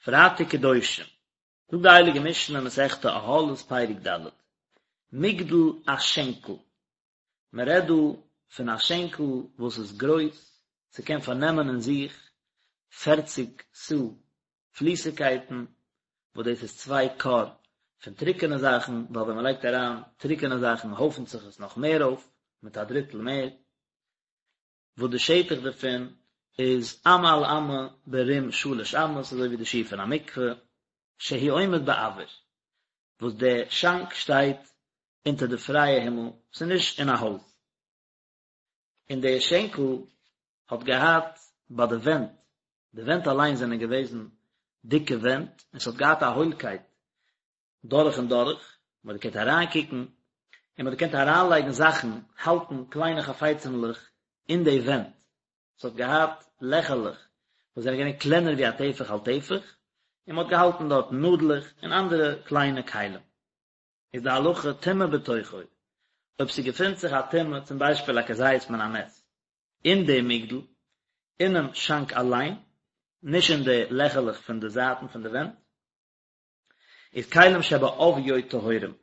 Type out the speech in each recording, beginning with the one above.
פרייטאג קדושים, זאגט די הייליגע משנה מסכת אהלות פרק ד', מגדל א שענקל, מען רעדט דא פון א שענקל וואס איז גרויס, ס'קען פארנעמען אין זיך פערציג סאה פליסיגקייטן, וואס דאס איז צוויי כור פון טרוקענע זאכן, ווייל ווען מען לייגט אריין טרוקענע זאכן הויפנט זיך עס נאך מער אויף, מיט א דריטל מער. וואס די שטח דערפון איז אמה על אמה ברום שלש אמות אזוי ווי די שיעור פון א מקווה, שהוא עומד באויר, וואס די שאנק שטייט אונטער די פרייע הימל, ס'איז נישט אין א הויז. און די שענקל האט געהאט ביי די ווענט, די ווענט אליין זענען געוועזן דיקע ווענט, און ס'האט געהאט א הוילקייט דורך און דורך, מען האט געקענט אריינקוקן, און מען האט געקענט אריינלייגן זאכן, האלטן קליינע חפצימ'לעך אין די ווענט, ס'האט געהאט לעכערלעך וואס זענען געווען קלענער ווי א טפח על טפח, און מען האט געהאלטן דארט נאדלעך און אנדערע קליינע כלים. איז די הלכה טומאה בתוכו, אויב ס'געפינט זיך א טומאה, צום ביישפיל א כזית מן המת, אין די מגדל, אינעם שאנק אליין, נישט אין די לעכערלעך פון די זייטן פון די ווענט, איז כלים שבעוביו טהורים,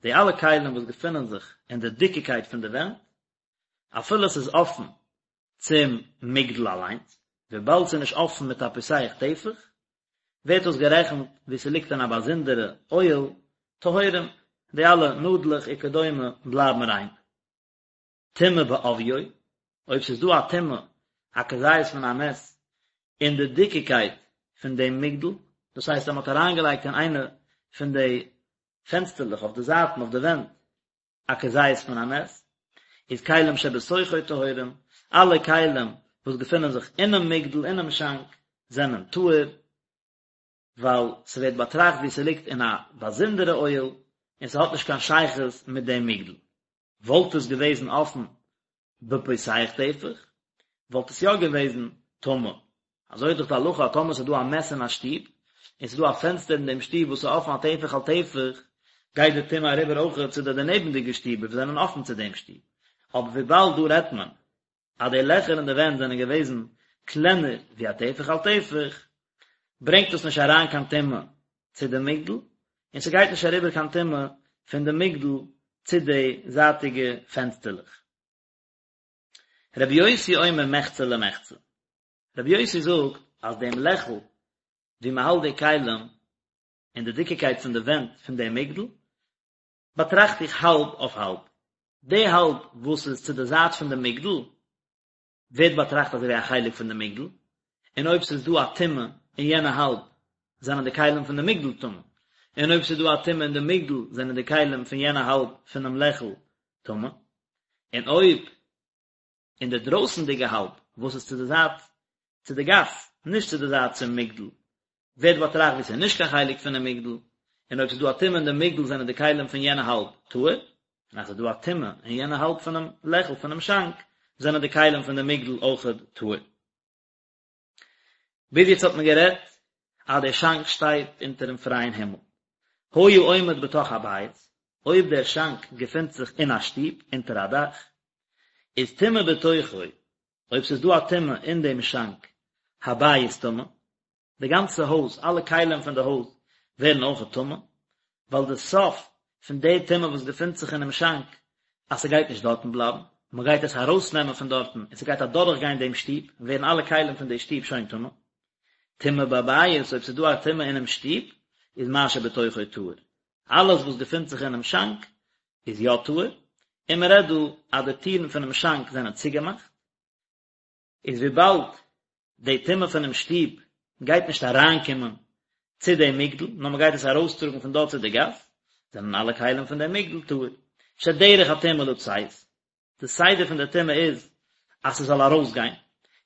די אלע כלים וואס געפינען זיך אין די דיקיקייט פון די ווענט, אפילו עס איז אפן צום מגדל אליינס, וויבאלד ס'איז נישט אפן מיט א פותח טפח, ווערט דאס גערעכנט ווי ס'ליגט אין א באזונדערע אוהל, טהורים, די אלע נאדלעך וכדומה בלייבן ריין. טומאה בעוביו, אויב ס'איז דא א טומאה, א כזית מן המת, אין די דיקיקייט פון דעם מגדל, דאס הייסט אז מ'האט אריינגעלייגט אין איינע פון די פענסטערלעך אויף די זייטן אויף די ווענט א כזית מן המת, איז כלים שבתוכו טהורים, אלע כלים וואס געפינען זיך אינעם מגדל, אינעם שאנק, זענען טהור, ווייל ס'ווערט באטראכט ווי ס'ליגט אין א באזונדערע אוהל, און ס'האט נישט קיין שייכות מיט דעם מגדל. וואלט עס געוועזן אפן בפותח טפח, וואלט עס יא געוועזן טמא. אזוי איז דאך די הלכה אז טאמער ס'איז דא א מת אין א שטוב, און ס'איז דא א פענסטער אין דעם שטוב וואס איז אפן א טפח על טפח, גייט די טומאה אריבער אויכעט צו די דערנעבנדיגע שטיבער וואס זענען אפן צו דעם שטוב. אבער וויבאלד דא רעדט מען אז די לעכער אין די ווענט זענען געוועזן קלענער ווי א טפח על טפח, ברענגט דאס נישט אריין קיין טומאה צו די מגדל, און ס'גייט נישט אריבער קיין טומאה פון די מגדל צו די זייטיגע פענסטערלעך. רבי יוסי אומר מחצה למחצה, רבי יוסי זאגט אז דעם לעכל וואו מ'האלט די כלים און די דיקיקייט פון די ווענט פון דעם מגדל, באטראכט איך האלב אויף האלב. די האלב וואס איז צו די זייט פון די מגדל, ווערט באטראכט אזוי ווי א חלק פון די מגדל, און אויב ס'איז דא א טומאה אין יענע האלב, זענען די כלים פון די מגדל טמא, און אויב ס'איז דא א טומאה אין די מגדל, זענען די כלים פון יענע האלב פונעם לעכל טמא, און אויב אין די דרויסנדיגע האלב וואס איז צו די זייט צו די גאס, נישט צו די זייט צום מגדל, ווערט באטראכט ווי ס'איז נישט קיין חלק פונעם מגדל, און אויב ס'איז דא א טומאה אין די מגדל זענען די כלים פון יענע האלב טהור, און אז ס'איז דא א טומאה אין יענע האלב פונעם לעכל פונעם שאנק, זענען די כלים פון די מגדל אויכעט טהור. ביז יעצט האט מען גערעדט אז דער שאנק שטייט אונטערן פרייען הימל. היה עומד בתוך הבית, אויב דער שאנק געפינט זיך אין א שטוב, אונטער א דאך, איז טומאה בתוכו, אויב ס'איז דא א טומאה אין דעם שאנק, הבית טמא, די גאנצע הויז, אלע כלים פון די הויז ווערן אויכעט טמא, ווייל די סוף פון די טומאה וואס געפינט זיך אינעם שאנק, אז ס'גייט נישט דארטן בלייבן, מ'גייט עס ארויסנעמען פון דארטן און ס'גייט אדורכגיין דעם שטוב, ווערן אלע כלים פון די שטוב שוין טמא. טומאה בבית, אויב ס'איז דא א טומאה אינעם שטוב, איז מה שבתוכו טהור. אלעס וואס געפינט זיך אינעם שאנק איז יא טהור, און מ'רעדט דא אז די טירן פונעם שאנק זענען צוגעמאכט, איז וויבאלד די טומאה פונעם שטוב גייט נישט אריינקומען צו דעם מגדל, נאר מען גייט עס ארויסטראגן פון דארט צו די גאס, זענען אלע כלים פון דעם מגדל טהור. שדרך הטומאה לצאת, די סדר פון די טומאה איז אז ס'זאל ארויסגיין,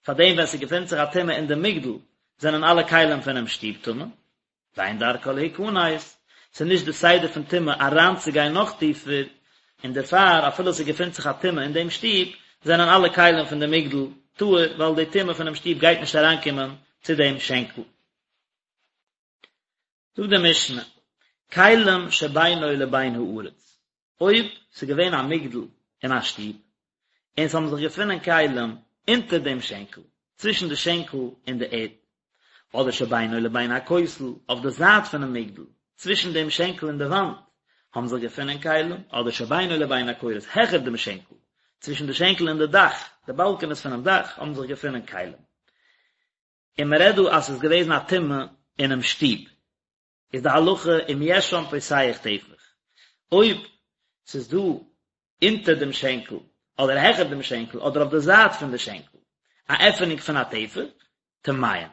פארדעם ווען ס'געפינט זיך א טומאה אין די מגדל זענען אלע כלים פונעם שטוב טמא, ואין דרכה להיכנס, ס'איז נישט די סדר פון טומאה אריינצוגיין נאך טיפער, און דערפאר אפילו ס'געפינט זיך א טומאה אין דעם שטוב, זענען אלע כלים פון די מגדל טהור, ווייל די טומאה פונעם שטוב גייט נישט אריינקומען צו דעם שענקל. זאגט די משנה, כלים שבינו לבין הארץ, אויב ס'איז געווען א מגדל אין א שטוב, און ס'האבן זיך געפונען כלים אונטער דעם שענקל, צווישן די שענקל און די ערד. אדער שבינו לבין הכותל, אויף די זייט פונעם מגדל, צווישן דעם שענקל און די וואנט, האבן זיך געפונען כלים, אדער שבינו לבין הקורות, העכער דעם שענקל, צווישן די שענקל און די דאך, די באלקענעס פונעם דאך, האבן זיך געפונען כלים. און מען רעדט דא אז ס'איז געוועזן א טומאה אינעם שטוב. איז די הלכה אם יש שם פותח טפח, אויב ס'איז דא אונטער דעם שענקל, אדער העכער דעם שענקל, אדער אויף די זייט פון די שענקל, א עפענונג פון א טפח, טמאין,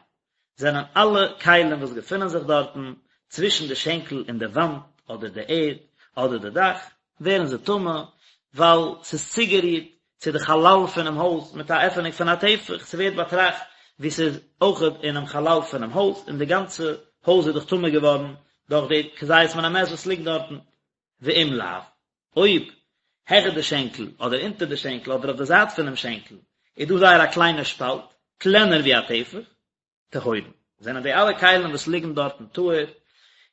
זענען אלע כלים וואס געפונען זיך דארטן, צווישן די שענקל און די וואנט, אדער די ערד, אדער די דאך, ווערן זיי טמא, ווייל ס'איז צוגערירט צו די חלל פונעם הויז מיט א עפענונג פון א טפח, ס'ווערט באטראכט ווי ס'איז אויכעט אינעם חלל פונעם הויז, און די גאנצע הויז איז דאך טמא געווארן דורך די כזית מן המת וואס ליגט דארטן. ואם לאו, אויב העכער די שענקל, אדער אונטער די שענקל, אדער אויף די זייט פונעם שענקל, איז דא זייער א קליינע שפאלט, קלענער ווי א טפח, טהורין, זענען די אלע כלים וואס ליגן דארטן טהור,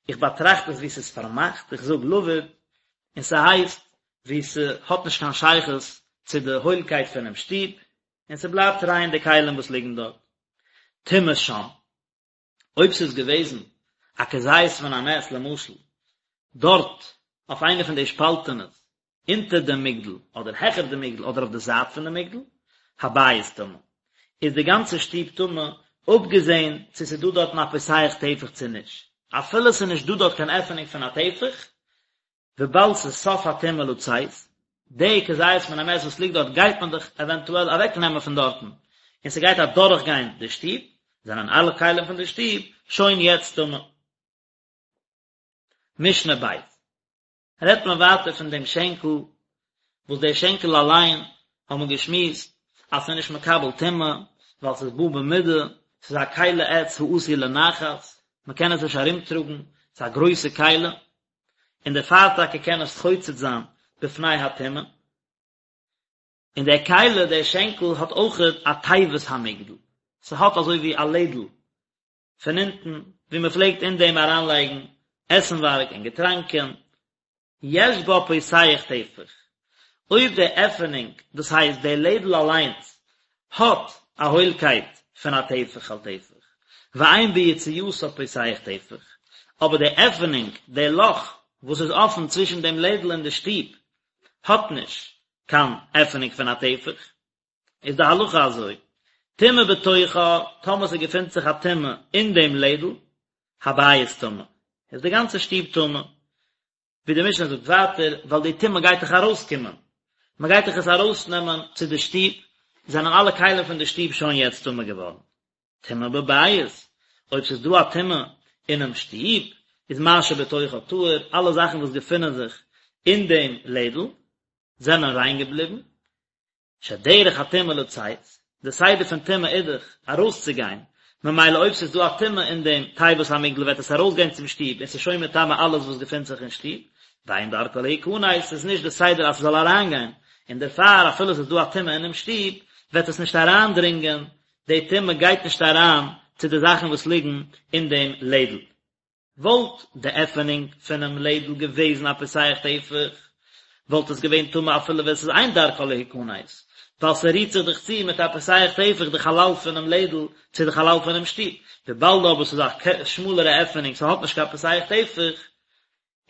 איך באטראכט עס ווי ס'איז פארמאכט, איך זאג לבוד, און ס'הייסט ווי ס'האט נישט קיין שייכות צו די הוילקייט פונעם שטוב, און ס'בלייבט ריין די כלים וואס ליגן דארט. טומאה שם. אויב ס'איז געוועזן א כזית מן המת למשל דארט אויף איינע פון די שפאלטענעס אונטער דעם מגדל אדער העכער דעם מגדל אדער אויף די זייט פון דעם מגדל, הבית טמא, איז די גאנצע שטוב טמא, אפגעזען צו ס'איז דא דארטן א פותח טפח צו נישט, אפילו ס'איז נישט דא דארט קיין עפענונג פון א טפח, וויבאלד ס'איז סוף הטומאה לצאת, די כזית מן המת וואס ליגט דארט גייט מען דאך עווענטועל אוועק נעמען פון דארטן, און ס'גייט אדורך גיין די שטוב, זענען אלע כלים פון די שטוב שוין יעצט טמא. משנה ב' רעדט מען ווייטער פון דעם שענקל, וואס דער שענקל אליין האט מען געשמועסט אז ס'איז נישט מקבל טומאה, ווייל ס'איז בא במידה, ס'איז א כלי עץ העשוי לנחת, מ'קען עס נישט ארומטראגן, ס'איז א גרויסע כלי, און דערפאר טאקע קען עס חוצץ זיין בפני הטומאה. און דער כלי, דער שענקל, האט אויכעט א תיבת המגדל, ס'האט אזוי ווי א לעדל פון אונטן, ווי מען פלעגט אין דעם אריינלייגן עסנווארג און געטראנקען, יש בה פותח טפח, אויב די עפענונג, דאס הייסט די לעדל אליינס, האט א הוילקייט פון א טפח על טפח, ואין ביציאתה פותח טפח, אבער די עפענונג, די לאך וואס איז אפן צווישן דעם לעדל און די שטוב, האט נישט קיין עפענונג פון א טפח, איז די הלכה אזוי, טומאה בתוכה, טאמער ס'געפינט זיך א טומאה אין דעם לעדל, הבית טמא, איז די גאנצע שטוב טמא. ווי די משנה זאגט ווייטער, ווייל די טומאה גייט דאך ארויסקומען, מען גייט דאך עס ארויסנעמען צו די שטוב, זענען אלע כלים פון די שטוב שוין יעצט טמא געווארן. טומאה בבית, אויב ס'איז דא א טומאה אינעם שטוב, איז מה שבתוכה טהור, אלע זאכן וואס געפינען זיך אין דעם לעדל, זענען ריין געבליבן, שדרך הטומאה לצאת, די סדר פון טומאה איז דאך ארויסצוגיין, ממילא אויב ס'איז דא א טומאה אין דעם תיבת המגדל וועט עס ארויסגיין צום שטוב און ס'איז שוין מטמא אלעס וואס געפינט זיך אין שטוב, ואין דרכה להיכנס, ס'איז נישט די סדר אז ס'זאל אריינגיין, און דערפאר אפילו ס'איז דא א טומאה אינעם שטוב וועט עס נישט אריינדרינגען, די טומאה גייט נישט אריין צו די זאכן וואס ליגן אין דעם לעדל. וואלט די עפענונג פונעם לעדל געוועזן א פותח טפח, וואלט עס געווען טמא אפילו ווען ס'איז אין דרכה להיכנס, ווייל ס'רירט זיך דאך צו מיט א פותח טפח די חלל פונעם לעדל צו די חלל פונעם שטוב, וויבאלד אבער ס'איז א שמאלערע עפענונג ס'האט נישט קיין פותח טפח,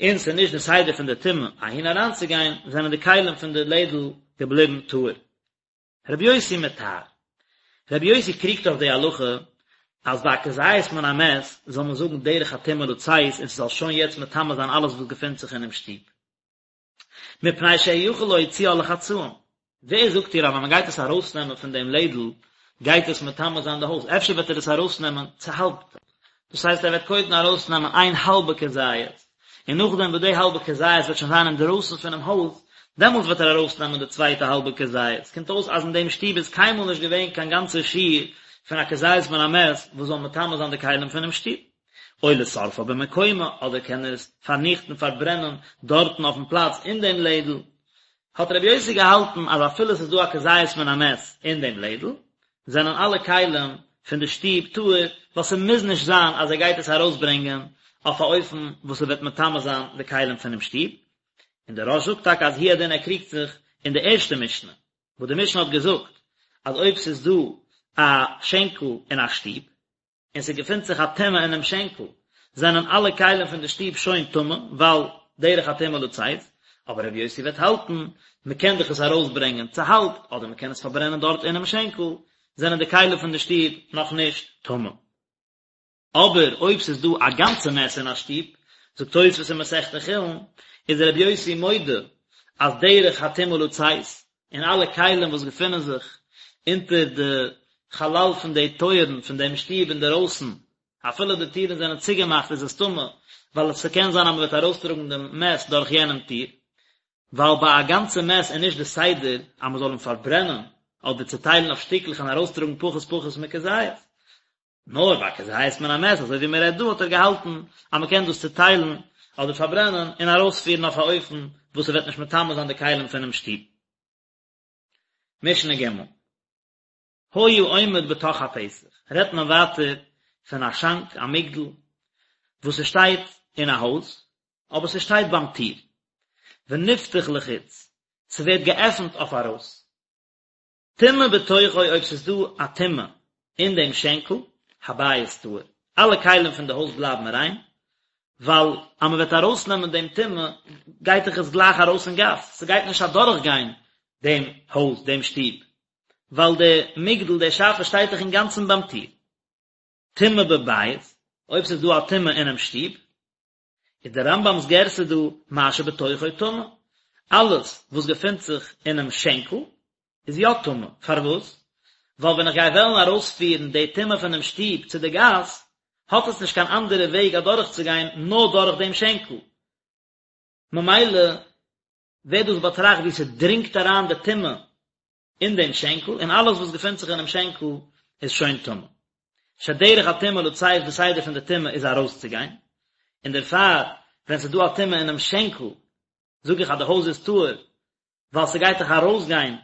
און ס'איז נישט די סדר פון די טומאה אהין אריינצוגיין, זענען די כלים פון די לעדל געבליבן טהור. רבי יוסי מטהר. רבי יוסי קריגט אויף די הלכה אז ביי א כזית מן המת זאל מען זאגן דרך הטומאה לצאת און ס'זאל שוין יעצט מטמא זיין אלעס וואס געפינט זיך אינעם שטוב. מפני שהוא יכול להוציאה לחצאים. ווער זאגט דיר אז ווען מ'גייט עס ארויסנעמען פון דעם לעדל גייט עס מטמא זיין די הויז? אפשר וועט ער עס ארויסנעמען צוהאלבט. דאס הייסט ער וועט קודם ארויסנעמען איין האלבע כזית, און נאכדעם וואס די האלבע כזית וועט שוין זיין אינדערויסן פונעם הויז, דעמאלטס וועט ער ארויסנעמען די צווייטע האלבע כזית. קומט אויס אז אין דעם שטוב איז קיינמאל נישט געווען קיין גאנצע שיעור פון א כזית מן המת וואס זאל מטמא זיין די כלים פונעם שטוב. או לשורפה במקומה, אדער קען ער עס פארניכטן, פארברענען, דארטן אויפן פלאץ אין דעם לעדל. האט רבי יוסי געהאלטן אז אפילו עס איז דא א כזית מן המת אין דעם לעדל, זענען אלע כלים פון די שטוב טהור, ווייל ס'מוז נישט זיין אז ער גייט עס ארויסברענגען אויף א אופן וואס ס'וועט מטמא זיין די כלים פונעם שטוב. און דער רא"ש זאגט טאקע אז הוא הדין ער קריגט זיך אין די ערשטע משנה, וואס די משנה האט געזאגט אז אויב ס'איז דא א שענקל אין א שטוב. און ס'געפינט זיך א טומאה אינעם שענקל, זענען אלע כלים פון די שטוב שוין טמא, ווייל דרך הטומאה לצאת, אבער רבי יוסי וועט האלטן, מ'קען דאך עס ארויסברענגען צוהאלבט, אדער מ'קען עס פארברענען דארט אינעם שענקל, זענען די כלים פון די שטוב נאך נישט טמא. אבער אויב ס'איז דא א גאנצע מת אין א שטוב, זאגט תוספות אין מסכת חולין, איז רבי יוסי מודה אז דרך הטומאה לצאת, און אלע כלים וואס געפינען זיך אונטער די חלל פון די טויערן פון דעם שטוב אינדערויסן, אפילו די טירן זענען צוגעמאכט איז עס טמא, ווייל עס קען זיין אז מען וועט ארויסטראגן דעם מת דורך יענעם טיר, ווייל ביי א גאנצע מת איז נישט די סדר אז מען זאל אים פארברענען אדער צוטיילן אויף שטיקלעך און ארויסטראגן פחות פחות מכזית. נאר ביי כזית מן המת אזוי ווי מען רעדט דא האט ער געהאלטן אז מען קען דאס צוטיילן אדער פארברענען און ארויספירן אויף א אופן וואס ס'וועט נישט מטמא זיין די כלים פונעם שטוב. משנה ג' היה עומד בתוך הפתח רעדט מען ווייטער פון א שאנק א מגדל וואס ס'שטייט אין א הויז אבער ס'שטייט ביים טיר ונפתח לחוץ ס'ווערט געעפנט אויף ארויס טומאה בתוכו אויב ס'איז דא א טומאה אין דעם שענקל, הבית טהור, אלע כלים פון די הויז בלייבן ריין, ווייל אז מ'וועט ארויסנעמען דעם טומאה גייט דאך עס גלייך ארויס אין גאס, ס'גייט נישט אדורכגיין דעם הויז, דעם שטוב, ווייל די מגדל, די שאפע שטייט דאך אינגאנצן ביים טיר. טומאה בבית, אויב ס'איז דא א טומאה אינעם שטוב, איז דער רמב"ם'ס גירסא דא מה שבתוכו טמא, אלעס וואס געפינט זיך אינעם שענקל איז יא טמא, פארוואס? ווייל ווען איך גיי וועלן ארויספירן די טומאה פונעם שטוב צו די גאס, האט עס נישט קיין אנדערע וועג אדורכצוגיין נאר דורך דעם שענקל, ממילא ווערט דאס באטראכט ווי ס'דרינגט אריין די טומאה אין דעם שענקל, און אלעס וואס געפינט זיך אינעם שענקל איז שוין טמא. שדרך הטומאה לצאת די סדר פון די טומאה איז ארויסצוגיין, און דערפאר ווען ס'איז דא א טומאה אינעם שענקל זאג איך אז די הויז איז טהור, ווייל ס'גייט דאך ארויסגיין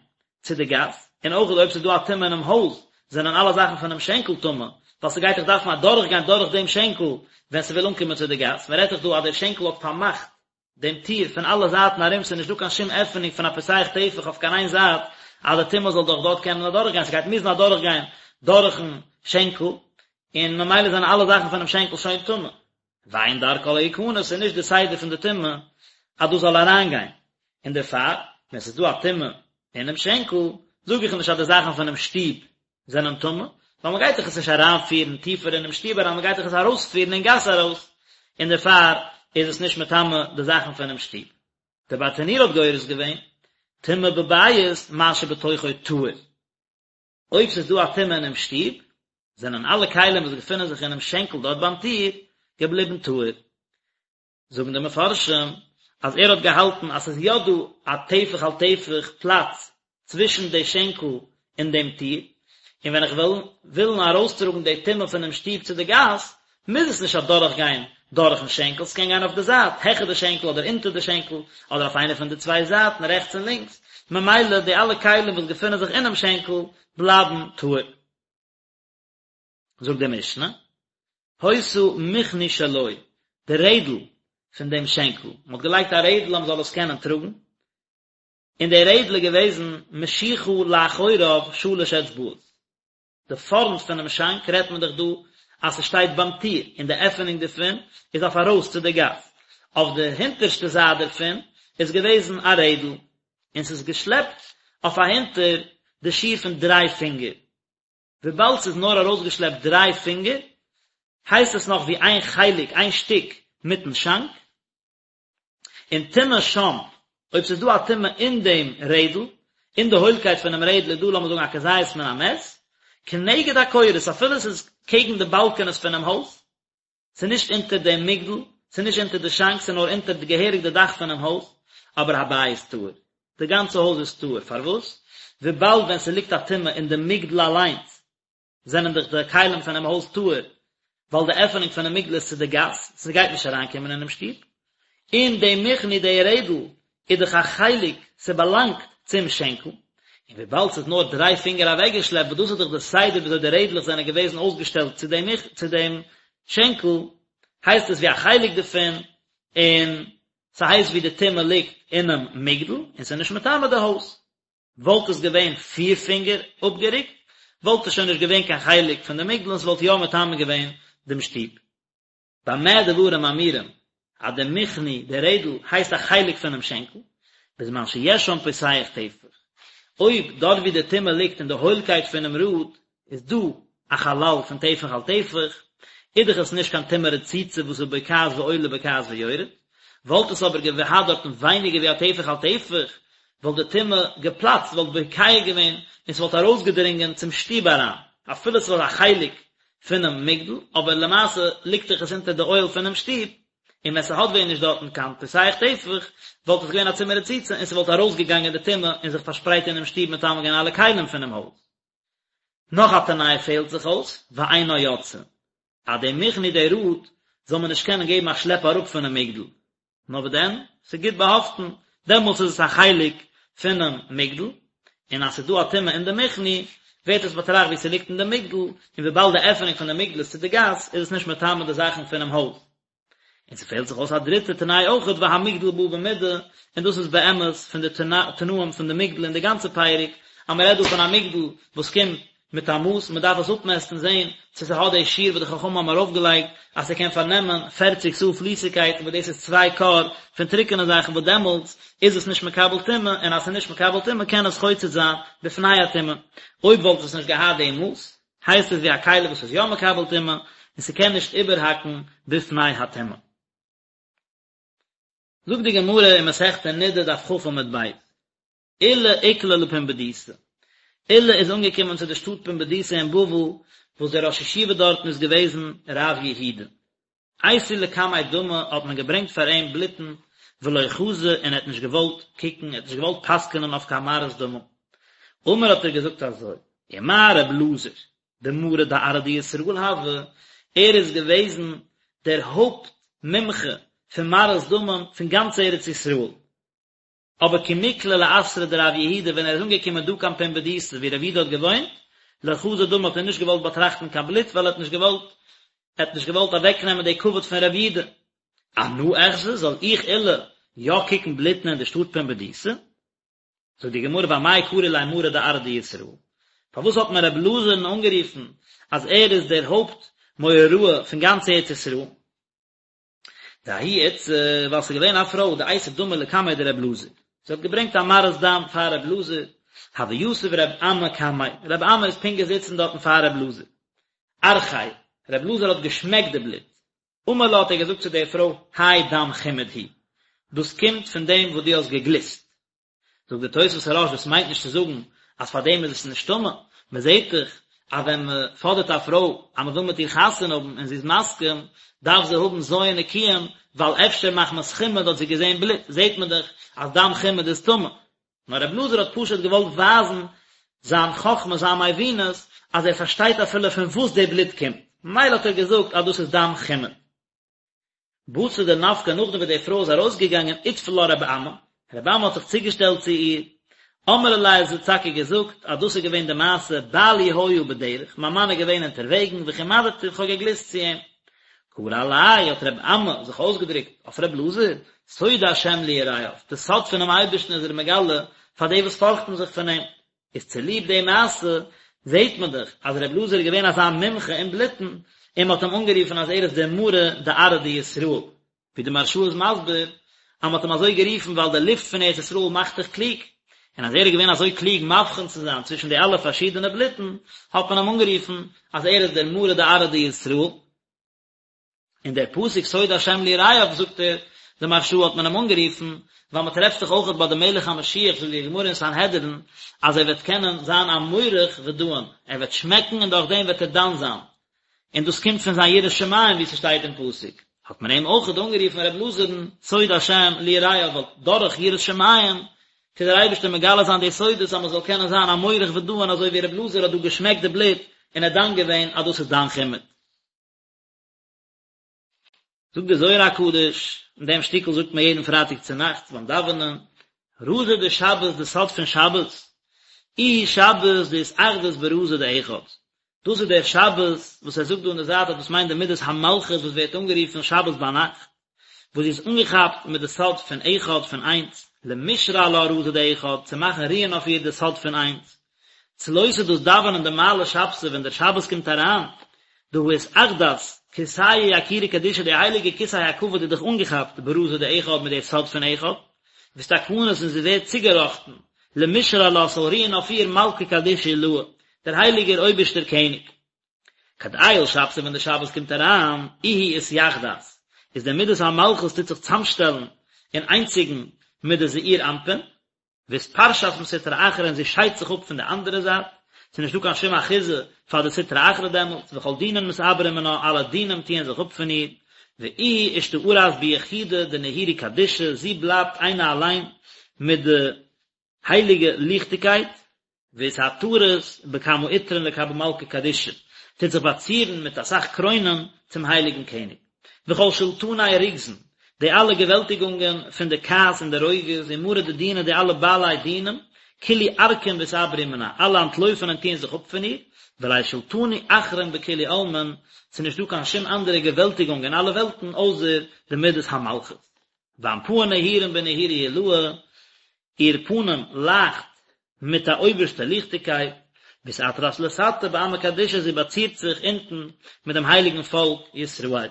צו די גאס, און אויך אויב ס'איז דא א טומאה אינעם הויז זענען אלע זאכן פונעם שענקל טמא, ווייל ס'גייט דאך דארפן אדורכגיין דורך דעם שענקל ווען ס'וויל אנקומען צו די גאס, מ'רעדט דאך דא אז דער שענקל האט פארמאכט דעם טיר פון אלע זייטן ארום, ס'איז נישט דא קיין שום עפענונג פון א פותח טפח אויף קיין איין זייט אז די טומאה זאל דורך דארט קענען אדורכגיין, ס'גייט מוזן אדורכגיין דורכן שענקל, און ממילא זענען אלע זאכן פונעם שענקל שוין טמא. ואין דרכה להיכנס, ס'איז נישט די סדר פון די טומאה אז דאס זאל אריינגיין, און דערפאר ווען ס'איז דא א טומאה אינעם שענקל, זאג איך נישט אז די זאכן פונעם שטוב זענען טמא, ווייל מען גייט דאך עס נישט אריינפירן טיפער אינעם שטוב אריין, מען גייט דאך עס ארויספירן אין גאס ארויס, און דערפאר איז עס נישט מטמא די זאכן פונעם שטוב. דער ברטנורא האט גורס געווען, טומאה בבית מה שבתוכו טהור. אויב ס'איז דא א טומאה אינעם שטוב, זענען אלע כלים וואס געפינען זיך אינעם שענקל דארט ביים טיר, געבליבן טהור. זאגן די מפרשים אז ער האט געהאלטן אז ס'איז יא דא א טפח על טפח פלאץ צווישן די שענקל און דעם טיר, און ווען איך וועל ווילן ארויסטראגן די טומאה פונעם שטוב צו די גאס, מוז עס נישט אדורכגיין דורכן שענקל, ס'קען גיין אויף די זייט, העכער די שענקל אדער אונטער די שענקל, אדער אויף איינע פון די צוויי זייטן, רעכטס און לינקס, ממילא די אלע כלים וואס געפינען זיך אינעם שענקל בלייבן טהור. זאגט די משנה, היתה מכני שלו, די רעדל פון דעם שענקל, מען האט געלייגט א רעדל אז מען זאל עס קענען טראגן, און די רעדל איז געוועזן משוכה לאחוריו שלש אצבעות, די פארנט פונעם שאנק רעדט מען דאך דא אז ס'שטייט ביים טיר, און די עפענונג דערפון איז אויף ארויס צו די גאס, אויף די הינטערשטע זייט דערפון איז געוועזן א רעדל, און ס'איז געשלעפט אויף אהינטער די שיעור פון דריי פינגער, וויבאלד ס'איז נאר ארויסגעשלעפט דריי פינגער, הייסט עס נאך ווי איין חלק, איין שטיק, מיטן שאנק. און טומאה שם, אויב ס'איז דא א טומאה אין דעם רעדל, אין די הוילקייט פונעם רעדל איז דא לאמיר זאגן א כזית מן המת, כנגד הקורות, אפילו ס'איז קעגן די באלקענעס פונעם הויז, ס'איז נישט אונטער דעם מגדל, ס'איז נישט אונטער די שאנק, ס'איז נאר אונטער די געהעריג די דאך פונעם הויז, אבער הבית טהור. די גאנצע הויז איז טהור. פארוואס? וויבאלד ווען ס'ליגט א טומאה אין די מגדל אליינס, זענען דאך די כלים פונעם הויז טהור, ווייל די עפענונג פונעם מגדל איז צו די גאס, ס'גייט נישט אריינקומען אינעם שטוב. און די מכני, די רעדל, איז דאך א חלק, ס'באלאנגט צום שענקל, און וויבאלד ס'איז נאר דריי פינגער אוועקגעשלעפט, וואס דאס איז דאך די סדר וויאזוי די רעדלעך זענען געוועזן אויסגעשטעלט צו דעם צו דעם שענקל, הייסט עס ווי א חלק דערפון, און ס'הייסט ווי די טומאה ליגט אינעם מגדל, און ס'איז נישט מטמא די הויז. וואלט עס געווען פיר פינגער אפגערוקט, וואלט עס שוין נישט געווען קיין חלק פון די מגדל און ס'וואלט יא מטמא געווען דעם שטוב. במה דברים אמורים אז די מכני, די רעדל, הייסט א חלק פונעם שענקל, בזמן שיש שם פותח טפח. אויב דארט ווי די טומאה ליגט אין די הוילקייט פונעם ראד איז דא א חלל פון טפח על טפח, איז דאך עס נישט קיין טומאה רצוצה וואס איז בוקעת ועולה בוקעת ויורד, וואלט עס אבער געהאט דארטן ווייניגער ווי א טפח על טפח, וואלט די טומאה געפלאצט, וואלט בוקע געווען און ס'וואלט ארויסגעדרינגען צום שטוב אריין, אפילו ס'וואלט א חלק פונעם מגדל, אבער למעשה ליגט דאך עס אונטער די אוהל פונעם שטוב, און ווען ס'האט ווען נישט דארטן קיין פותח טפח, וואלט עס געווען א טומאה רצוצה און ס'וואלט ארויסגעגאנגען די טומאה און זיך פארשפרייט אינעם שטוב מטמא געווען אלע כלים פונעם הויז. נאך א תנאי פעלט זיך אויס, ואינה יוצאה, אז די מכני די ראד זאל מען נישט קענען געבן א שלעפ אראפ פונעם מגדל, נאר וואס דען, ס'איז גוט באהאפטן, דעמאלטס איז עס א חלק פונעם מגדל, און אז ס'איז דא א טומאה אין די מכני, ווערט עס באטראכט ווי ס'ליגט אין די מגדל, און וויבאלד די עפענונג פון די מגדל איז צו די גאס, איז עס נישט מטמא די זאכן פונעם הויז. און ס'פעלט זיך אויס א דריטע תנאי אויכעט והמגדל בא במידה, און דאס איז באמת פון די תנאים פון די מגדל אין די גאנצע פרק, אז מ'רעדט דא פון א מגדל וואס קומט מיט א מאס, מ'דארף עס אפמעסטן זען צו ס'האט די שיעור וואס די חכמים האבן ארויפגעלייגט אז ס'קען פארנעמען פערציג סאה פליסיגקייט וואס דאס איז צוויי כור פון טרוקענע זאכן וואס דעמאלטס איז עס נישט מקבל טומאה, און אז ס'איז נישט מקבל טומאה קען עס חוצץ זיין בפני הטומאה. אויב וואלט עס נישט געהאט די מאס, הייסט עס ווי א כלי וואס איז יא מקבל טומאה, און ס'קען נישט איבערהאקן בפני הטומאה. זאגט די גמרא אין מסכת נדה דף כ עמוד ב', עולא איקלע לפומבדיתא, עולא איז אנגעקומען צו די שטאט פומבדיתא אין בבל, וואס דער ראש ישיבה דארטן איז געוועזן רב יהודה. אייתו לקמיה דמא האט מען געברענגט פאר אים בלוטן ולא חזא און ער האט נישט געוואלט קוקן, ער האט נישט געוואלט פסק'נען אויף קיין מראות דמים. אמר האט ער געזאגט אזוי, ומה ר' אלעזר דמרא דארעא דישראל הוה, ער איז געוועזן דער הויפט מומחה פון מראות דמים פון גאנץ ארץ ישראל, אבער כי מקלע לאתרא דרב יהודה ווען ער איז אנגעקומען דא קיין פומבדיתא ווי רב יהודה האט געוואוינט, לא חזא דמא האט ער נישט געוואלט באטראכטן קיין בלוט ווייל ער האט נישט געוואלט ער האט נישט געוואלט אוועקנעמען די כבוד פון רב יהודה. אנא אחזי זאל איך עולא יא קוקן בלוטן אין די שטאט פומבדיתא? זאגט די גמרא ואמאי קרו ליה מרא דארעא דישראל פארוואס האט מען רב אלעזר'ן אנגערופן אז ער איז דער הויפט מורה הוראה פון גאנץ ארץ ישראל? דההיא איתתא, ווייל ס'איז געווען א פרוי דאייתא דמא לקמיה דר' אלעזר, זי האט געברענגט א מראת דם פאר ר' אלעזר, הוה יתיב ר' אמי קמיה, ר' אמי איז פונקט געזיצן דארטן פאר ר' אלעזר, ארחיה, ר' אלעזר האט געשמעקט די בלוט, אמר לה האט ער געזאגט צו דער פרוי, האי דם חימוד הוא, דאס קומט פון דעם וואס דו האסט געגליסט. זאגט דער תוספות הרא"ש דאס מיינט נישט צו זאגן אז פאר דעם איז עס נישט טמא, מען זעט דאך אז ווען מען פאדערט א פרוי אז מען וויל מיט איר חתונה האבן און זי איז מסכים, דארף זי האבן ז' נקיים, ווייל אפשר מחמת חימוד האט זי געזען בלוט, זעט מען דאך אז דם חימוד איז טמא. נאר רב אלעזר האט פשוט געוואלט ווייזן זיין חכמה, זיין מבינות, אז ער פארשטייט אפילו פון וואס די בלוט קומט, ממילא האט ער געזאגט אז דאס איז דם חימוד. בתר דנפקא נאכדעם וואס די פרוי איז ארויסגעגאנגען איטפל לה רבי אמי, רבי אמי האט זיך צוגעשטעלט צו איר, אמרה ליה זי האט טאקע געזאגט אז דאס איז געווען די מעשה בעלי היה בדרך, מיין מאן איז געווען אונטערוועגן וחמדתיו איך האב געגליסט צו אים. קרי עליה האט רבי אמי זיך אויסגעדרוקט אויף רבי אלעזר, סוד השם ליראיו, די סוד פונעם אייבערשטן איז ער מגלה פאר די וואס פארכטן זיך פון אים. איז צוליב די מעשה זעהט מען דאך אז ר' אלעזר איז געווען אזא מומחה אין בלוטן, און מען האט אים אנגערופן אז ער איז דער מרא דארעא דישראל, ווי די מהרש"א איז מסביר אז מען האט אים אזוי גערופן ווייל די לופט פון ארץ ישראל מאכט דיך קלוג, און אז ער איז געווען אזוי קלוג מבחין צו זיין צווישן די אלע פארשידענע בלוטן, האט מען אים אנגערופן אז ער איז דער מרא דארעא דישראל. און דער פסוק סוד השם ליראיו זאגט ער, די מהרש"א האט מען אים אנגערופן, ווייל מען טרעפט זיך אויכעט ביי די מלך המשיח זאגט די גמרא אין סנהדרין אז ער וועט קענען זיין א מורך ודאין, ער וועט שמעקן און דורך דעם וועט ער דן זיין, און דאס קומט פון זיין יראת שמים ווי ס'שטייט אין פסוק, האט מען אים אויכעט אנגערופן ר' אלעזר'ן סוד השם ליראיו ווייל דורך יראת שמים טוט דער אייבערשטער מגלה זיין די סודות אז מען זאל קענען זיין א מורך ודאין אזוי ווי ר' אלעזר האט דא געשמעקט די בלוט און ער דן געווען אז דאס איז דם חימוד. זאגט דער זוהר הקדוש, אין דעם שטיקל זאגט מען יעדן פרייטאג צו נאכטס ביים דאווענען, רזא דשבת די סוד פון שבת, איהי שבת דאתאחדת ברזא דאחד, דאס איז דער שבת וואס ער זאגט דא אין די זייט אז דאס מיינט די מידת המלכות וואס ווערט אנגערופן שבת ביינאכט, וואס זי איז אנגעכאפט מיט די סוד פון אחד פון איינס, למשרי עלה רזא דאחד, צו מאכן רוען אויף איר די סוד פון איינס. צלותא דאס דאווענען דמעלי שבתא ווען דער שבת קומט אריין, דהא אתאחדת כורסייא יקירא קדישא די הייליגע כסא הכבוד איז דאך אנגעכאפט ברזא דאחד מיט די סוד פון אחד, ואתתקנת און זי ווערט צוגעראכטן למשרי עלה ס'זאל רוען אויף איר מלכא קדישא עילאה, דער הייליגער אויבערשטער קעניג. כד עייל שבתא ווען די שבת קומט אריין, איהי אתיחדת, איז די מידת המלכות טוט זיך צאמשטעלן און איינציגן מיט די זעיר אנפין, ואתפרשת מסטרא אחרא און זי שיידט זיך אפ פון די אנדערע זייט, ס'איז נישטא קיין שום אחיזה פאר די סטרא אחרא דעמאלטס, וכל דינין מתעברין מנה, אלע דינים טוען זיך אפ פון איר, ואיהי אשתארת ביחודא דנהירו קדישא, זי בלייבט איינע אליין מיט די הייליגע ליכטיגקייט, ואתעטרת בכמה עטרין לקבל מלכא קדישא, טוט זיך באצירן מיט אסאך קרוינען צום הייליגן קעניג. וכל שולטני רוגזין, די אלע געוועלטיגונגען פון די כעס און די רוגז, ומארי דדינא די אלע בעלי דינים, כולהו ערקין ואתעברו מנה, אלע אנטלויפן און טוען זיך אפ פון איר, ולית שולטנא אחרין בכולהו עלמין, ס'איז נישטא קיין שום אנדערע געוועלטיגונג אין אלע וועלטן אויסער די מדת המלכות. ואנפהא נהירין בנהירו עילאה, איר פנים לייכט מיט א אויבערשטע ליכטיגקייט, ואתעטרת לתתא בעמא קדישא, זי באצירט זיך אונטן מיט דעם הייליגן פאלק ישראל.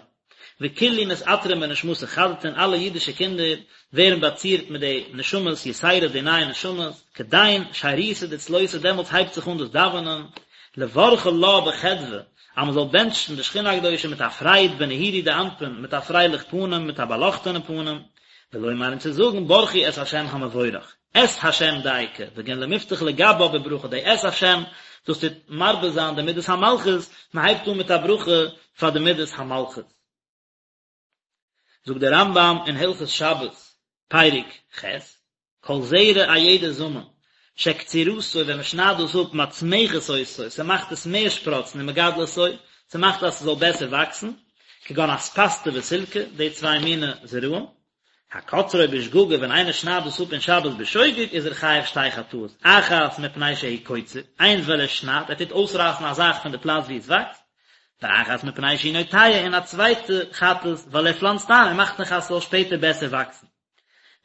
וכולהו מתעטרין בנשמתא חדתין, אלע אידישע קינדער ווערן באצירט מיט די נשמות יתירות די נייע נשמות, כדין שירותא דצלותא דעמאלטס הייבט זיך אן דאס דאווענען, לברכא לה בחדוה, אז מען זאל בענטשן די שכינה הקדושה מיט א פרייד בנהירו דאנפין, מיט א פרייליך פנים, מיט א באלאכטענע פנים, ולומר און צו זאגן ברכו את ה' המבורך, את ה' דייקא, בגין למפתח לגבה בברכה, די את ה' דאס טוט מרבה זיין די מידת המלכות, מען הייבט אן מיט א ברכה פאר די מידת המלכות. זאגט דער רמב"ם אין הלכות שבת, פרק ח', כל זרע א יעדע זאמען, שקצירתו ווען מען שניידט דאס אפ מצמחת אותו, ס'מאכט עס מער שפראצן ומגדלתו, ס'מאכט אז ס'זאל בעסער וואקסן, כגון אספסתא וסילקא, די צוויי מיני זרעים. הקוצרו בשגגה ווען איינער שניידט דאס אפ אין שבת בשוגג איז ער חייב שתי חטאות, אחת מפני שהוא קוצר, איינס ווייל ער שניידט, ער טוט אויסרייסן א זאך פון די פלאץ וואו עס וואקסט, ואחת מפני שהוא נוטע, און א צווייטע חטאת ווייל ער פלאנצט איין, ער מאכט נאך אז ס'זאל שפעטער בעסער וואקסן.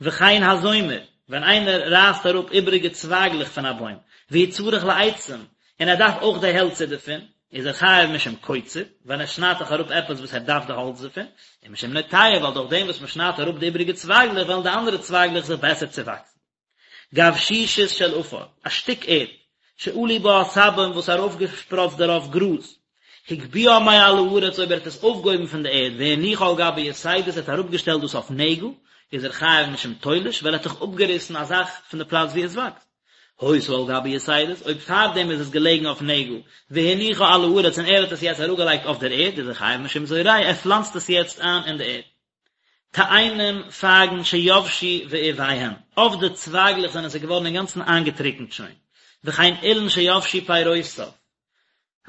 וכן הזומר, ווען איינער רייסט אראפ איבעריגע צווייגלעך פון א בוים, והוא צריך לעצים, און ער דארף אויך די העלצער דערפון, איז ער חייב משום קוצר, ווייל ער שניידט דאך אראפ עפעס וואס ער דארף די האלץ דערפון, און משום נוטע, ווייל דורך דעם וואס מען שניידט אראפ די איבעריגע צווייגלעך וועלן די אנדערע צווייגלעך זיך בעסער צעוואקסן. גבשושית של עפר, א שטיק ערד, שעלו בה עשבים וואס איז ארויפגעשפראצט דערויף גראז, הגביהה מעל הארץ אויב ער האט עס אויפגעהויבן פון די ערד והניחה על גבי יתדות ער האט אראפגעשטעלט דאס אויף נעגל, איז ער חייב משום תולש ווייל ער האט דאך אפגעריסן א זאך פון די פלאץ וואו עס וואקסט. היתה על גבי יתדות, אויב פארדעם איז עס געלעגן אויף נעגל, והניחה על הארץ און ער האט עס יעצט אראפגעלייגט אויף דער ערד, איז ער חייב משום זורע, ער פלאנצט עס יעצט איין אין די ערד. תאנים פייגן שיבשו ועיביהן, אויף די צווייגלעך זענען זיי געווארן אינגאנצן איינגעטריקנט שוין, וכן אילן שיבשו פירותיו,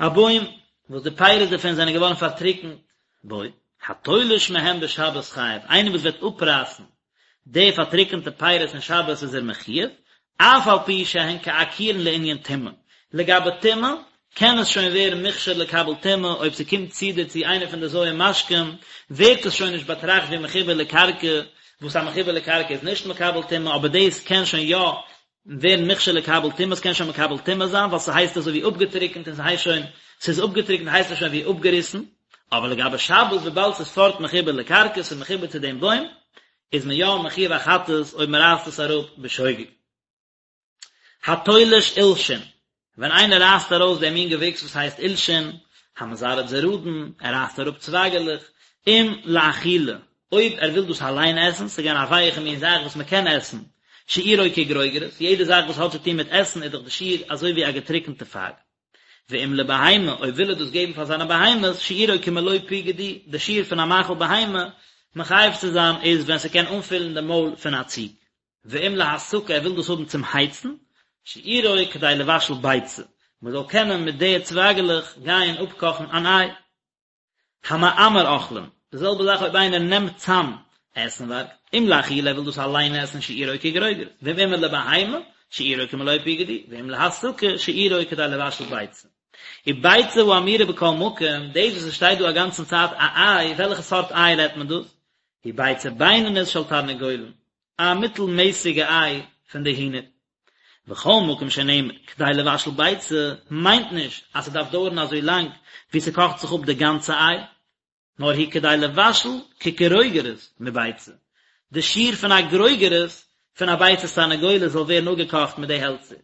א בוים וואס די פירות דערפון זענען געווארן פארטריקנט, בו, התולש מהם בשבת חייב, איינער וואס וועט אפרייסן די פארטריקענטע פירות אין שבת איז ער מחויב, אף על פי שהן כעקורין לענין טומאה, לגבי טומאה קען עס שוין ווערן מוכשר לקבל טומאה, אויב ס'קומט צו דערצו איינער פון די ז' משקים, ווערט עס שוין נישט באטראכט ווי מחובר לקרקע, וואס א מחובר לקרקע איז נישט מקבל טומאה, אבער דאס קען שוין יא ווערן מוכשר לקבל טומאה, ס'קען שוין מקבל טומאה זיין, ווייל ס'הייסט אזוי ווי אפגעטריקנט און ס'הייסט שוין, ס'איז אפגעטריקנט הייסט עס שוין ווי אפגעריסן, אבער לגבי שבת וויבאלד ס'איז פארט מחובר לקרקע, ס'איז מחובר צו דעם בוים, איז מען יא מחויב א חטאת אויב מ'רייסט עס אראפ בשוגג. התולש עולשין, ווען איינער רייסט ארויס דעם מין געוויקס וואס הייסט עולשין, המזרד זרדין, ער רייסט אראפ צווייגעלעך, אם לאכילה, אויב ער וויל דאס אליין עסן, ס'איז געווען א ווייעכע מין זאך וואס מען קען עסן, שיעורו כגרוגרת, יעדע זאך וואס האט צו טון מיט עסן איז דאך די שיעור אזוי ווי א געטריקענטע פייג. ואם לבהמה, אויב וויל ער דאס געבן פאר זיינע בהמות, שיעורו כמלוא פי גדי, די שיעור פון א מאכל בהמה מחייב צו זיין איז ווען ס'קען אנפילן די מויל פון א ציג. ואם להסקה ער וויל דאס האבן צום הייצן, שיעורו כדי לבשל ביצה, מען זאל קענען מיט די צווייגעלעך גיין אפקאכן אן איי. המעמר אוכלים, די זעלבע זאך אויב איינער נעמט צאם עסנווארג, אם לאכילה ער וויל דאס אליין עסן שיעורו כגרוגרת, ואם עמער לבהמה, שיעורו כמלוא פי גדי, ואם להסקה, שיעורו כדי לבשל ביצה. וביצה האמורה בכל מקום, דאס וואס עס שטייט דא א גאנצן צייט א איי, וועלכע סארט איי רעדט מען דאס? היא ביצה בינונית של תרנגולין, א מיטלמעסיגע איי פון די הינער. וכל מקום שנאמר כדי לבשל ביצה מיינט נישט אז ס'דארף דויערן אזוי לאנג ווי ס'קאכט זיך אפ די גאנצע איי, נאר הוא כדי לבשל כגרוגרת מביצה, די שיעור פון א גרוגרת פון א ביצת תרנגולת זאל ווערן אפגעקאכט מיט די העלצער.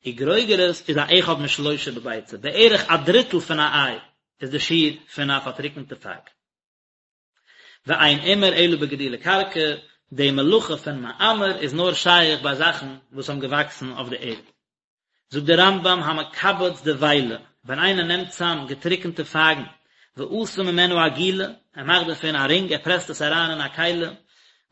וגרוגרת איז א אחד משלושה בביצה, בערך א דריטל פון א איי איז די שיעור פון א פארטריקנטע פייג. ואין עימור אלא בגידולי קרקע, די מלאכה פון מעמר איז נאר שייך ביי זאכן וואס האבן געוואקסן אויף די ערד. זאגט דער רמב"ם המקבץ דבילה, ווען איינער נעמט צאם געטריקענטע פייגן, ועשה ממנו עגילה, ער מאכט דערפון א רינג, ער פרעסט עס אריין אין א כלי,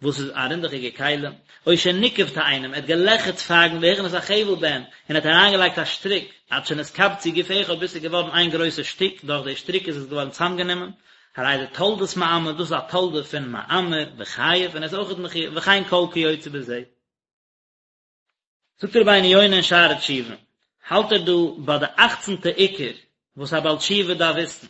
וואס איז א רינדעכיגע כלי, או שניקב תאנים, ער האט געלעכערט פייגן והכניס החבל בהן, און ער האט אריינגעלייגט א שטריק, עד שנתקבצו גוף אחד ביז ס'איז געווארן איין גרויסע שטיק, דורך די שטריק איז עס געווארן צאמגענומען, הרי זה תולדת מעמר, דאס איז א תולדה פון מעמר, וחייב, און ער איז אויכעט מחויב, וכן כל כיוצא בזה. זאגט רבינו יונה אין שערי תשובה, האלט ער דא ביי די אכצנטע עיקר וואס א בעל תשובה דארף וויסן,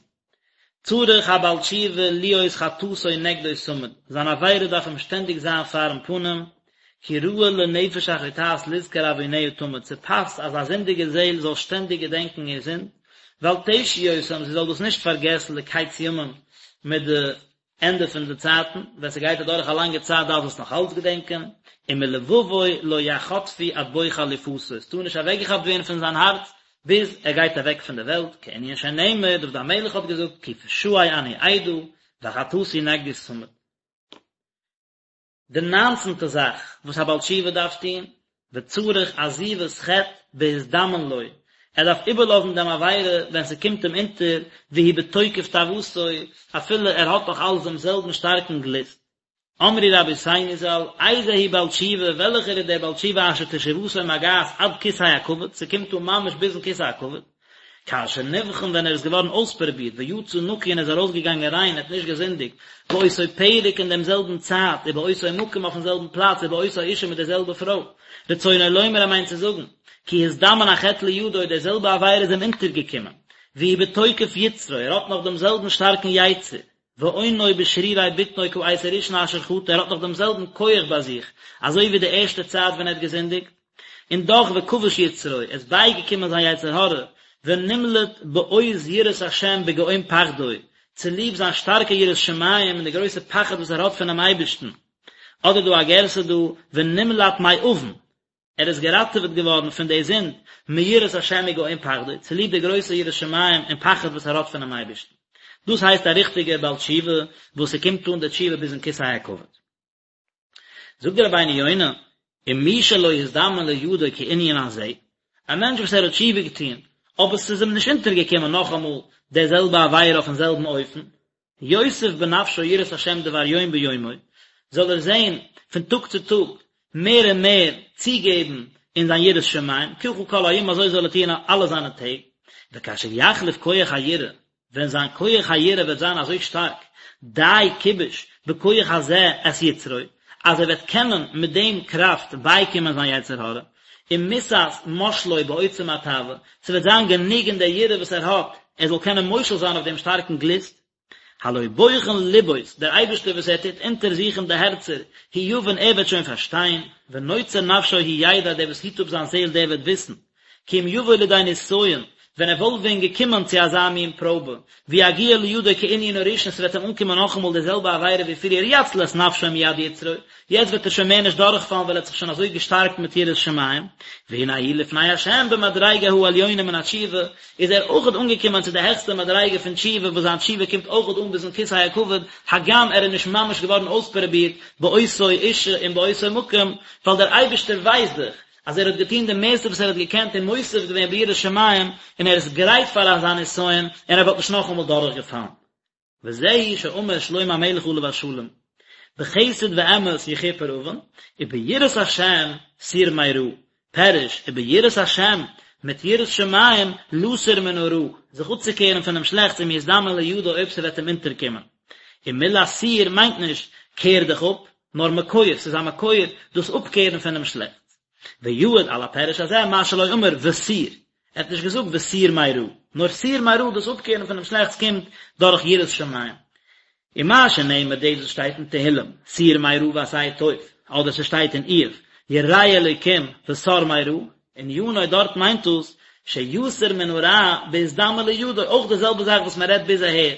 צריך הבעל תשובה להיות חטאתו נגדו תמיד, זיין עבירה דארף אים שטענדיג זיין פארן פנים, כי ראוי לנפש החוטאת לזכור עווניה תמיד, ס'פאסט אז א זינדיגע זעהל זאל שטענדיג געדענקן איר זינד, ואל תשי אותם, זי זאל דאס נישט פארגעסן לקץ ימים מיט די ענדע פון די צייטן, ווען ס'גייט אדורך א לאנגע צייט דארף זי עס נאך אלץ געדענקען, ומלבבו לא יחטפו עד בוא חליפתו, עס טאר נישט אוועקגעכאפט ווערן פון זיין הארץ ביז ער גייט אוועק פון די וועלט, כענין שנאמר, דוד המלך האט געזאגט, כי פשעי אני אדע, וחטאתי נגדי תמיד. די ניינצנטע זאך וואס א בעל תשובה דארף טון, וצריך עזיבת חטא בהזדמן לו, ער דארף איבערלאזן דעם עבירה ווען ס'קומט אים אונטער, והוא בתוקף תאוותו, אפילו ער האט נאך אלץ דעם זעלבן שטארקן גליסט. אמרו רבותינו ז"ל, איזהו בעל תשובה, וועלכער איז דער בעל תשובה אשר תשובתו מגעת עד כסא הכבוד, ס'קומט אן ממש ביזן כסא הכבוד, כאשר נבחן ווען ער איז געווארן אויספרובירט ויצא נקי און איז ארויסגעגאנגען ריין ער האט נישט געזינדיגט, באותו פרק אין דעם זעלבן צייט ובאותו מקום אויפן זעלבן פלאץ ובאותה אישה מיט דער זעלבע פרוי. רצונו לומר ער מיינט צו זאגן, כי הזדמן החטא לידו די זעלבע עבירה איז אים אונטערגעקומען, והוא בתוקף יצרו ער האט נאך דעם זעלבן שטארקן יצר, ואונו בשרירי בטנו כעת הראשונה אשר חטא ער האט נאך דעם זעלבן כח ביי זיך אזוי ווי די ערשטע צייט ווען ער האט געזינדיגט, און דאך וכבש יצרו, עס איז בייגעקומען זיין יצר הרע, ונמלט בעוז יראת השם בגאון פחדו, צוליב זיין שטארקע יראת שמים און די גרויסע פחד וואס ער האט פונעם אייבערשטן. אדער דא א גירסא דא, ונמלט מעוון, ער איז געראטעוועט געווארן פון די זינד, מיראת השם וגאון פחדו, צוליב די גרויסע יראת שמים און פחד וואס ער האט פונעם אייבערשטן. דאס הייסט א ריכטיגער בעל תשובה, וואס ס'קומט אן די תשובה ביזן כסא הכבוד. זאגט דער רבינו יונה, ומי שלא הזדמן לידו כענין הזה, א מענטש וואס ער האט תשובה געטון, אבער ס'איז אים נישט אונטערגעקומען נאכאמאל די זעלבע עבירה אויפן זעלבן אופן, יוסיף בנפשו יראת השם דבר יום ביומו, זאל ער זען פון טאג צו טאג מער און מער צוגעבן אין זיין יראת שמים, ככה כל הימים אזוי זאל ער טון אלע זיינע טעג, וכאשר יחליף כח היראה, ווען זיין כח היראה וועט זיין אזוי שטארק, די כיבוש בכח הזה את יצרו, אז ער וועט קענען מיט דעם קראפט בייקומען זיין יצר הרע, ומיתת מושלו בעוצם התאווה, ס'וועט זיין גענוג אין דער יראה וואס ער האט, ער זאל קענען מושל זיין אויף דעם שטארקן גליסט. הלא בוחן לבות, דער אייבערשטער וואס ער טוט אונטערזוכן די הערצער, הוא יבין ער וועט שוין פארשטיין, ונוצר נפשו הוא ידע, דער וואס היט אפ זיין זעהל דער וועט וויסן, כי אם יבוא לידי נסיון, ווען ער וואלט ווען געקומען צו אזא מין פראבע, ויגיע לידו כענין הראשון, ס'וועט אים אנקומען נאכאמאל די זעלבע עבירה ווי פריער יציל את נפשו מיד יצרו, יעצט וועט ער שוין מער נישט דורכפאלן ווייל ער האט זיך שוין אזוי געשטארקט מיט יראת שמים, והנה הוא לפני השם במדריגה העליונה מן התשובה, איז ער אויכעט אנגעקומען צו די העכסטע מדריגה פון תשובה וואס זיין תשובה קומט אויכעט אן ביזן כסא הכבוד, הגם ער איז נישט ממש געווארן אויספרובירט באותו אישה און באותו מקום, ווייל דער אייבערשטער ווייסט דאך אז ער האט געטון די מערסטע וואס ער האט געקענט און מוסיף געווען ביראת שמים, און ער איז גרייט פאר אזא נסיון, און ער וואלט נישט נאכאמאל דורכגעפאלן. וזהו שאמר שלמה המלך עליו השלום, בחסד ואמת יכופר עון, וביראת השם סור מרע, פירוש, וביראת השם, מיט יראת שמים, לסור מן הרע, זיך אפצוקערן פונעם שלעכטס אם יזדמן לידו אויב ס'וועט אים אונטערקומען. און מילת סור מיינט נישט, קער דיך אפ, נאר מקור, ס'איז א מקור, דאס אפקערן פונעם שלעכטס. ויעיד על הפירוש הזה מה שלא אמר וסור, ער האט נישט געזאגט וסור מרע, נאר סור מרע, דאס אפקערן פונעם שלעכטס קומט דורך יראת שמים. ומה שנאמר דאס וואס שטייט אין תהילים, סור מרע ועשה טוב, אדער ס'שטייט אין איוב, ירא אלוקים וסר מרע, ענינו דארט מיינט דאס שיסור מן הרע בהזדמן לידו, אויך די זעלבע זאך וואס מען רעדט ביז אהער,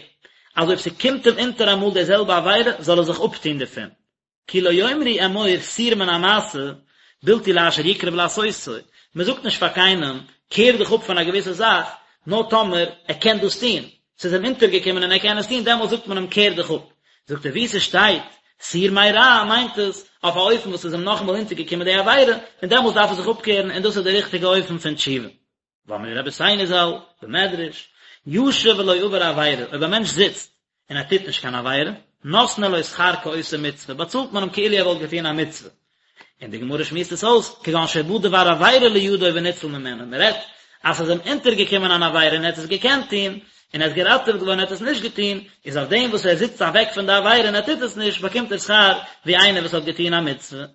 אז אויב ס'קומט אים אונטער אמאל די זעלבע עבירה זאל ער זיך אפטון דערפון. כי לא יאמרו אמור סור מן המעשה בלתי לאשר יקרב לעשותו, מען זאגט נישט פאר קיינעם קער דיך אפ פון א געוויסע זאך, נאר טאמער ער קען דאס טון, ס'איז אים אונטערגעקומען און ער קען עס טון, דעמאלט זאגט מען אים קער דיך אפ. זאגט ער וואו ס'שטייט סור מרע מיינט עס אויף א אופן וואס איז אים נאכאמאל אונטערגעקומען די עבירה, און דעמאלט דארף ער זיך אפקערן און דאס איז די ריכטיגע אופן פון תשובה. ואמרו רבותינו ז"ל, במדרש, ישב ולא עבר עבירה, אויב א מענטש זיצט און ער טוט נישט קיין עבירה, נותנין לו שכר כעושה מצוה, באצאלט מען אים כאילו ער וואלט געטון א מצוה. און די גמרא שמועסט עס אויס, כגון שבא דבר עבירה לידו וניצל ממנו, מען רעדט אז ס'איז אים אונטערגעקומען אן עבירה און ער האט עס געקענט טון, און ער איז געראטעוועט געווארן און ער האט עס נישט געטון, איז אויף דעם וואס ער זיצט אוועק פון די עבירה און ער טוט עס נישט, באקומט ער שכר ווי איינער וואס האט געטון א מצוה.